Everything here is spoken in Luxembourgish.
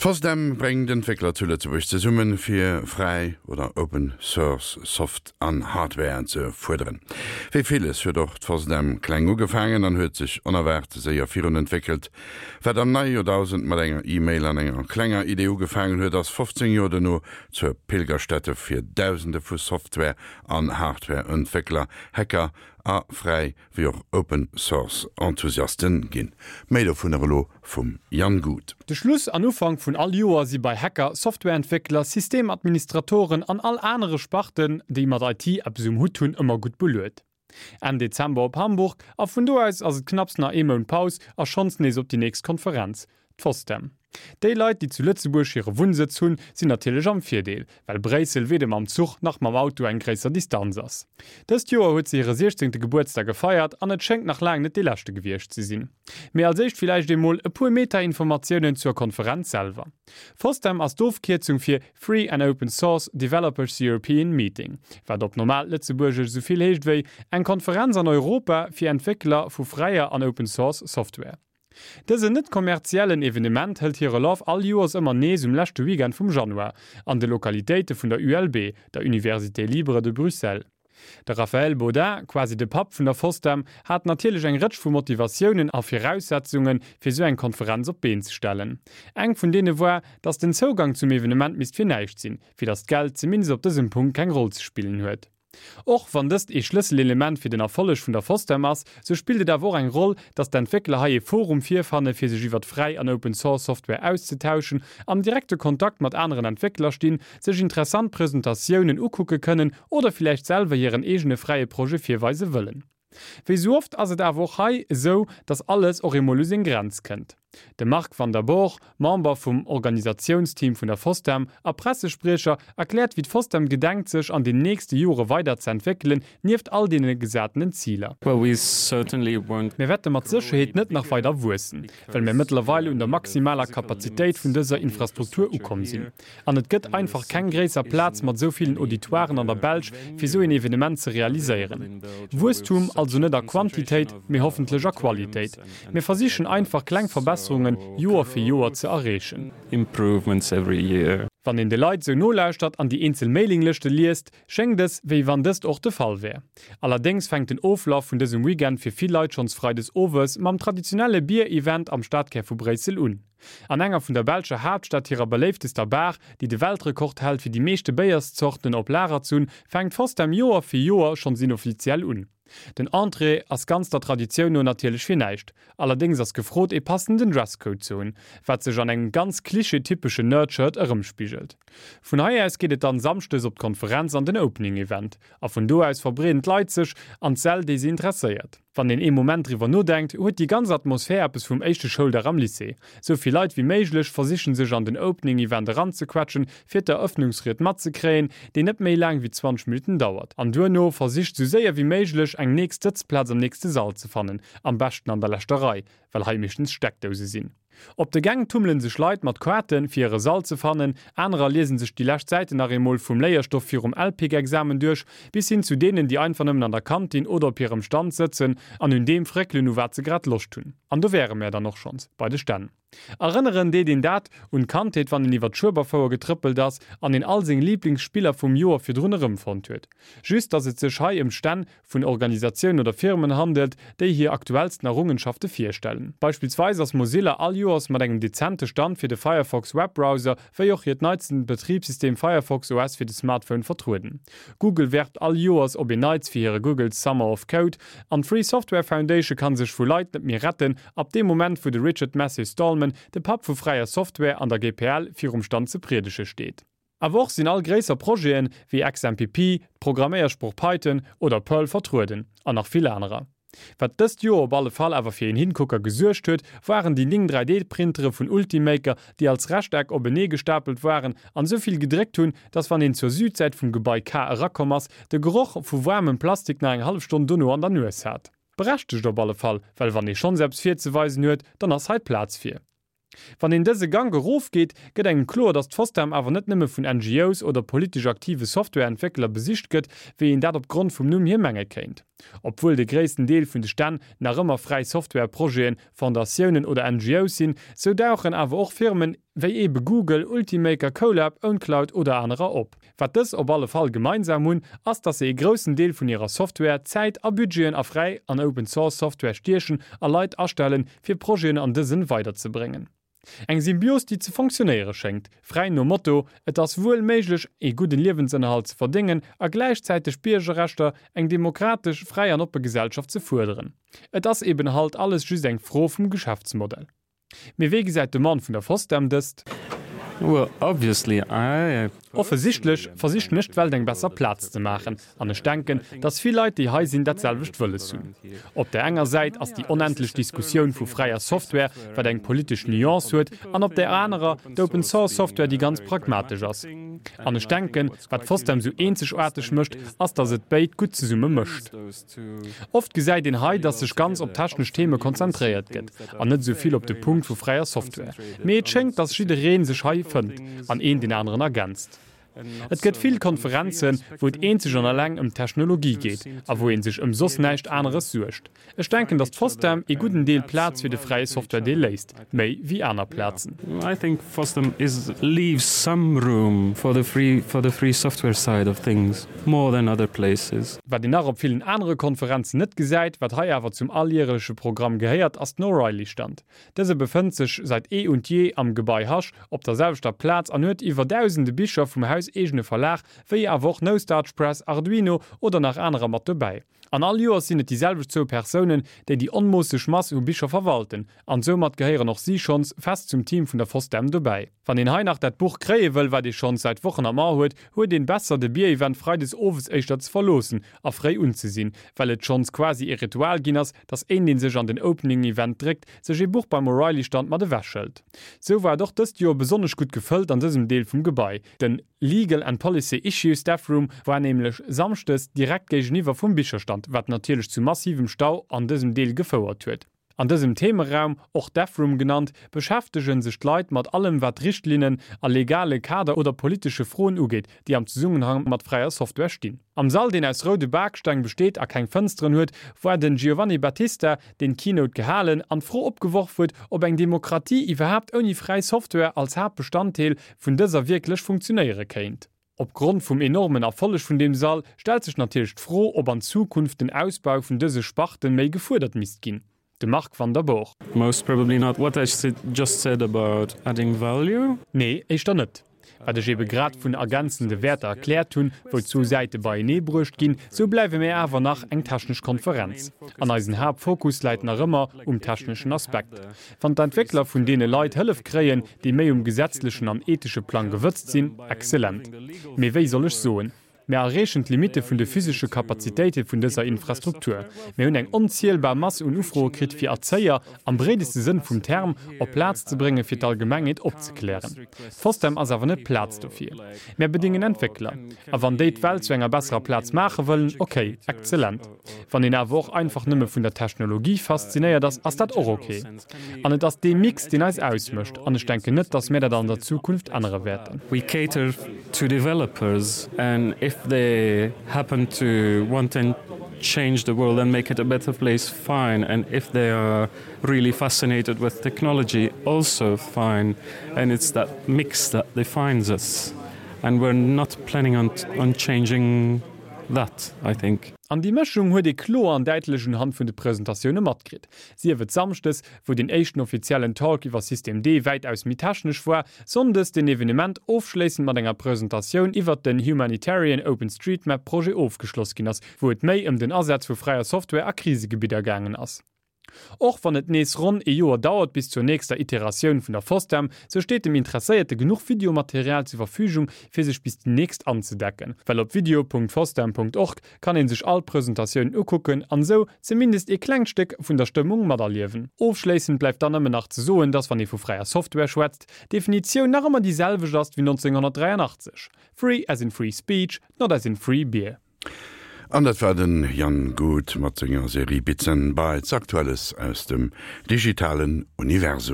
D'FOSDEM bréngt Entwéckler zu Lëtzebuerg zesummen, fir fräi oder Open Source Soft an Hardware ze fuerderen. Wéi villes huet och d'FOSDEM kleng ugefaangen an huet sech onerwaart séier virun entwéckelt. Wat am neie Joerdausend mat enger E-Mail an enger klenger Idee ugefaangen huet, ass 15 Joer dono zur Pilgerstätte fir Dausende vu Software an Hardware-Entwéckler, Hacker a fräi wéi och Open Source Enthusiasten ginn. Méi dovunner elo vum Jan Guth. De Schluss an Ufank vun all Joer si bei Hacker, Softwareentwéckler, Systemadministratoren an all anere Sparten, déi mat IT eppes um Hutt hunn, ëmmer gutt beluet. Enn Dezember op Hamburg a vun do aus ass et knapps nach ee Mount Paus a schonns nees op déi nächst Konferenz, D'FOSDEM. Déi Leit, déi zu Lëtzebuerg hire Wunnsëtz hunn, sinn natierlech am Virdeel, well Bréissel weder mam Zuch nach mam Auto eng gréisser Distanz ass. Dëst Joer huet se hire siechzéngte Gebuertsdag gefeiert an et schéngt nach laang net dee leschte gewiescht ze sinn. Mee als éischt villäicht eemol e puer Meta-Informatiounen zur Konferenz selwer. FOSDEM ass d'Ofkierzung fir Free and Open Source Developers European Meeting, wat op normaalt Lëtzebuergesch esou vill heescht wéi eng Konferenz an Europa fir Entwéckler vu fräier an Open Source Software. Dësen net kommerziellen Evenement hëlt hire Laf all Joers ëmmer nees um leschte Weekend vum Januar, an de Lokalitéite vun der ULB, der Université Libre de Bruxelles. De Raphaël Baudin, quasi de Papp vun der FOSDEM, hat natierlech eng Rëtsch vu Motivatiounen a Viraussetzunge fir sou eng Konferenz op d'Been ze stellen. Eng vun deene war, datt den Zougang zum Evenement misst fir näischt sinn, fir datt d'Geld zumindest op dësem Punkt keng Roll ze spillen huet. Och wann dëst ee Schlësselelement fir den Erfolleg vun der FOSDEM ass, sou spillt et awer och eng Roll, dass d'Entwéckler hei ee Forum virfanne fir sech iwwert fräi an Open Source Software auszetauschen, am direkte Kontakt mat aneren Entwéckler stinn, sech interessant Presentatiounen ukucke kënnen oder villäicht selwer hiren eegene fräie Projet virweise wëllen. Wéi sou oft ass et awer och hei esou, dass alles och eemol u seng Grenz kënnt. De Marc Van der Borg, Member vum Organisatiounsteam vun der FOSDEM a Pressespriecher, erkläert wéi d'FOSDEM gedenkt sech an den nächste Jore weider ze entwéckelen, nieft all deene gesatenen Ziler. Mir wäerte mat Sécherheet net nach weider wuessen, well mir mëttlerweil un der maximaler Kapazitéit vun dëser Infrastruktur ukomm sinn. An et gëtt einfach keng gréisser Plaz mat esou villen Auditoiren an der Belsch, fir esou een Evenement ze realiséieren. Wuesstum also net a Quantitéit, mee hoffentlech a Qualitéit. Mir versichen einfach kleng Verbesserungen Joer fir Joer ze erreechen. Wann een de Leit esou nolauschtert an déi eenzel Mailinglëschte liest, schéngt es, wéi wann dëst och de Fall wär. Allerdéngs fänkt den Oflaf vun dësem Weekend fir vill Leit schonns freides owes mam traditionelle Bier-Event am Stadkär vu Bréissel un. An enger vun der belscher Haaptstad hirer beléiftester Bar, déi de Weltrekord hält fir déi meeschte Béierszorten op Lager ze hunn, fänkt FOSDEM Joer fir Joer schonns inoffiziell un. Den Entrée ass ganz der Traditioun no natierlech fir näischt, allerdéngs ass gefrot ee passenden Dresscode ze hunn, wat sech an engem ganz klischee-typeschen Nerd-Shirt erëmspigelt. Vun hei aus geet et dann Samschdes op d'Konferenz an den Opening Event, a vun do aus verbreeden d'Leit sech an d'Säll déi se interesséiert. Wann een ee Moment driwwer nodenkt, huet déi ganz Atmosphär eppes vum éischte Schouldag am Lycée. Sou vill Leit wéi méiglech versichen sech an den Opening Event eranzequetschen, fir d'Eröffnungsried matzekréien, déi net méi laang wéi 20 Minutten dauert. An duerno versicht sou séier wéi méiglech eng nächst Sëtzplaz am nächste Sall ze fannen, am beschten an der leschter Rei, well hei meeschtens Steckdouse sinn. Op de Gäng tummelen sech Leit mat Kaarten, fir hire Sall ze fannen, anerer liesen sech déi lescht Säiten nach eemol vum Léierstoff virum LPIC-Examen duerch, bis hin zu deenen, déi einfach nëmmen an der Kantin oder op hirem Stand sëtzen an un deem fréckelen, u wat se grad Loscht hunn. An do wäre mär dann och schonns bei de Stänn. Erënneren deet een dat un d'Kandheet, wann een iwwer d'Schueberfouer getrëppelt ass an een all seng Liiblingsspiller vum Joer virdrun erëmfonnt huet. Just, dass et sech hei ëm Stänn vun Organisatiounen oder Firmen handelt, déi hir aktuellsten Errungenschafte virstellen. Beispillsweis ass Mozilla all Joers mat engem dezente Stand fir de Firefox Webbrowser wéi och hiert neitsten Betribssystem Firefox OS fir de Smartphone vertrueden. Google werbt all Joers op een Neits fir hire Google's Summer of Code an d'Free Software Foundation kann sech vu Leit net méi retten ab deem Moment wou de Richard Matthew Stallman, de Papp vu fräier Software an der GPL, virum Stand ze priedege steet. Awer och sinn all gréisser Projeten, wéi XMPP, d'Programméiersprooch Python oder Perl vertrueden, an nach vill anerer. Wat dëst Joer op alle Fall awer fir een Hingucker gesuergt huet, waren déi 9 3D-Printere vun Ultimaker, déi als Rechteck openee gestapelt waren an esou vill gedréckt hunn, dass wann een zur Südsäit vum Gebai K erakomm ass, de Geroch vu waarmem Plastik nach eng hallef Stonn dono an der Nues hat. Berechtegt op alle Fall, well wann ee schonns eppes virzeweisen huet, dann ass hei d'Plaz fir. Wann een dëse Gank erofgeet, gëtt engem kloer, datt d'FOSDEM awer net nëmme vun NGOs oder politesch aktive Softwareentwéckler besicht gëtt, wéi een dat op Grond vum Numm hier menge kéint. Obwuel de gréissten Deel vun de Stänn nach ëmmer fräi Software-Projeten, Fondatiounen oder NGOs sinn, sou dauchen awer och Firmen wéi eebe Google, Ultimaker, Colab, Owncloud oder anerer op. Wat dës op alle Fall gemeinsam hunn, ass dass se ee groussen Deel vun hirer Software, Zäit a Budgeten a fräi an Open Source Software stiechen a Leit astellen, fir Projeten an dësen weiderzebréngen. Eng Symbios déi ze fonctionnéiere schéngt, fräi nom Motto, et ass wuel méiglech ee gudden Liewensënnerhalt ze verdéngen a gläichzäiteg Biergerrechter, eng demokratesch, fräi an oppe Gesellschaft ze fuerderen. Et ass eben halt alles just eng Fro vum Geschäftsmodell. Mee wéi gesäit de Mann vun der FOSDEM dëst? Well obviously I. Offesichtlech versichen ech d'Welt eng besser Plaz ze maachen an ech denken, dass vill Leit déi hei sinn dat selwecht wëlles hunn. Op där enger Säit ass déi onendlech Diskussioun vu fräier Software, wat eng politesch Nuance huet, an op där anerer d'Open Source Software déi ganz pragmatesch ass. An ech denken, wat FOSDEM sou eenzegaarteg mécht, ass dass et béid gutt zesumme mëscht. Oft gesäit een hei, dass sech ganz op technesch Theme konzentréiert gëtt an net esou vill op de Punkt vu fräier Software. Mee et schéngt, dass jidderee sech hei fënnt an een deen aneren ergänzt. Et gëtt vill Konferenzen, wou et eenzeg an alleng ëm d'Technologie geet a wou ee sech ëm soss näischt aneres suergt. Ech denken, dass d'FOSDEM ee gudden Deel Plaz fir de fräie Software-Deel léisst, méi wéi aner Plazen. I think FOSDEM is leaves some room for the free for the free software side of things more than other places. Wat een nach op villen anere Konferenzen net gesäit, wat hei awer zum alljähreleche Programm gehéiert, ass den O'Reilly-Stand. Dëse befënnt sech seit eh und je am Gebai Hasch op der selwechter Plaz an huet iwwer dausende Bicher vum hauseegene Verlag, wéi awer och No Starch Press, Arduino oder nach anerer mat dobäi. An all Joers sinn et déi selwecht zwou Persounen, déi déi onmoosseg Mass u Bicher verwalten, an soumat gehéieren och si schonns fest zum Team vun der FOSDEM dobäi. Wann een hei nach dat Buch kréie wëll, wat ee schonns säit Wochen am A huet, huet een besser de Bierevent freides owes éischter ze verloossen a fréi unzesinn, well et schonns quasi ee Ritual ginn ass, dass een deen sech an den Opening Event dréckt, sech ee Buch beim O'Reilly Stand mat ewech hëlt. Sou war et och dëst Joer besonnesch gutt gefëllt an dësem Deel vum Gebai. Den Legal and Policy Issues Staff Room war nämlech Samschdes direkt géigeniwwer vum Bicherstand, wat natierlech zu massivem Stau an dësem Deel gefouert huet. An dësem Themeraum, och Dev Room genannt, beschäftege sech d'Leit mat allem wat Richtlinnen a legale Kader oder politesche Froen ugeet, déi am Zesummenhang mat fräier Software stinn. Am Sall, deen aus roude Baksteng besteet a keng Fënsteren huet, war den Giovanni Battista, deen d'Keynote gehalen an d'Fro opgeworf huet, ob eng Demokratie iwwerhaapt ouni fräi Software als Haaptbestanddeel vun dëser wierklech funktionéiere kéint. Op Grond vum enormen Erfolleg vun deem Sall stellt sech natierlech d'Fro, ob an Zukunft den Ausbau vun dëse Sparten méi gefuerdert misst ginn. De Marc Van der Boor. Most probably not what I just said about adding value. Nee, éischter net. Wat ech ebe grad vun ergänzende Wäerter erkläert hunn, wou zwou Säite beienee bruecht ginn, sou bleiwe mir awer nach eng technesch Konferenz. An eisen Haaptfokus läit nach ëmmer um techneschen Aspekt. Wann d'Entwéckler vun deene Leit Hëllef kréien, déi méi um gesetzlechen an ethesche Plang gewëtzt sinn, exzellent. Mee wéi soll ech soen? Mir erreechen d'Limitte vun de physesche Kapazitéite vun dëser Infrastruktur. Mir hunn eng onzielbar Mass un Ufroe kritt, fir Erzéier, am breedeste Sënn vum Term, op d'Plaz ze bréngen, fir d'Allgemengheet opzeklären. D'FOSDEM ass awer net d'Plaz dofir. Mär bedéngen Entwéckler. A wann déi d'Welt zu enger besserer Plaz maache wëllen, okay, exzellent. Wann een awer och einfach nëmme vun der Technologie faszinéiert ass, ass dat och ok. An et ass dee Mix, deen eis ausmécht. An ech denken net, datt mir dat an der Zukunft ännere wäerten. We cater to developers and if they happen to want and change the world and make it a better place, fine. And if they are really fascinated with technology, also fine. And it's that mix that defines us. And we're not planning on, on changing that, I think. An déi Mëschung huet ee kloer an däitlech unhand vun de Presentatioune matkritt. Sief et Samschdes, wou den éischten offiziellen Talk iwwer System D wäitaus méi technesch war, Sonndes den Evenement ofschléissend mat enger Presentatioun iwwert den Humanitarian OpenStreetMap Projet ofgeschloss ginn ass, wou et méi ëm den Asaz vu fräier Software a Krisegebidder gaangen ass. Och wann et nees ronn ee Joer dauert bis zur nächster Iteratioun vun der FOSDEM, sou steet dem Interesséierte genuch Videomaterial zur Verfügung fir sech bis déi nächst anzedecken. Well op video.fosdem.org kann een sech all d'Presentatiounen ukucken an sou zumindest ee klengt Stéck vun der Stëmmung materliewen. Ofschléissend bleift dann nëmmen nach ze soen, dass wann ee vu fräier Software schwätzt, d'Definitioun nach ëmmer déi selwecht ass wéi 1983, Free as in free speech, not as in free beer. An dat war den Jan Guth mat senger Serie Bits and Bytes, Aktuelles aus dem digitalen Universum.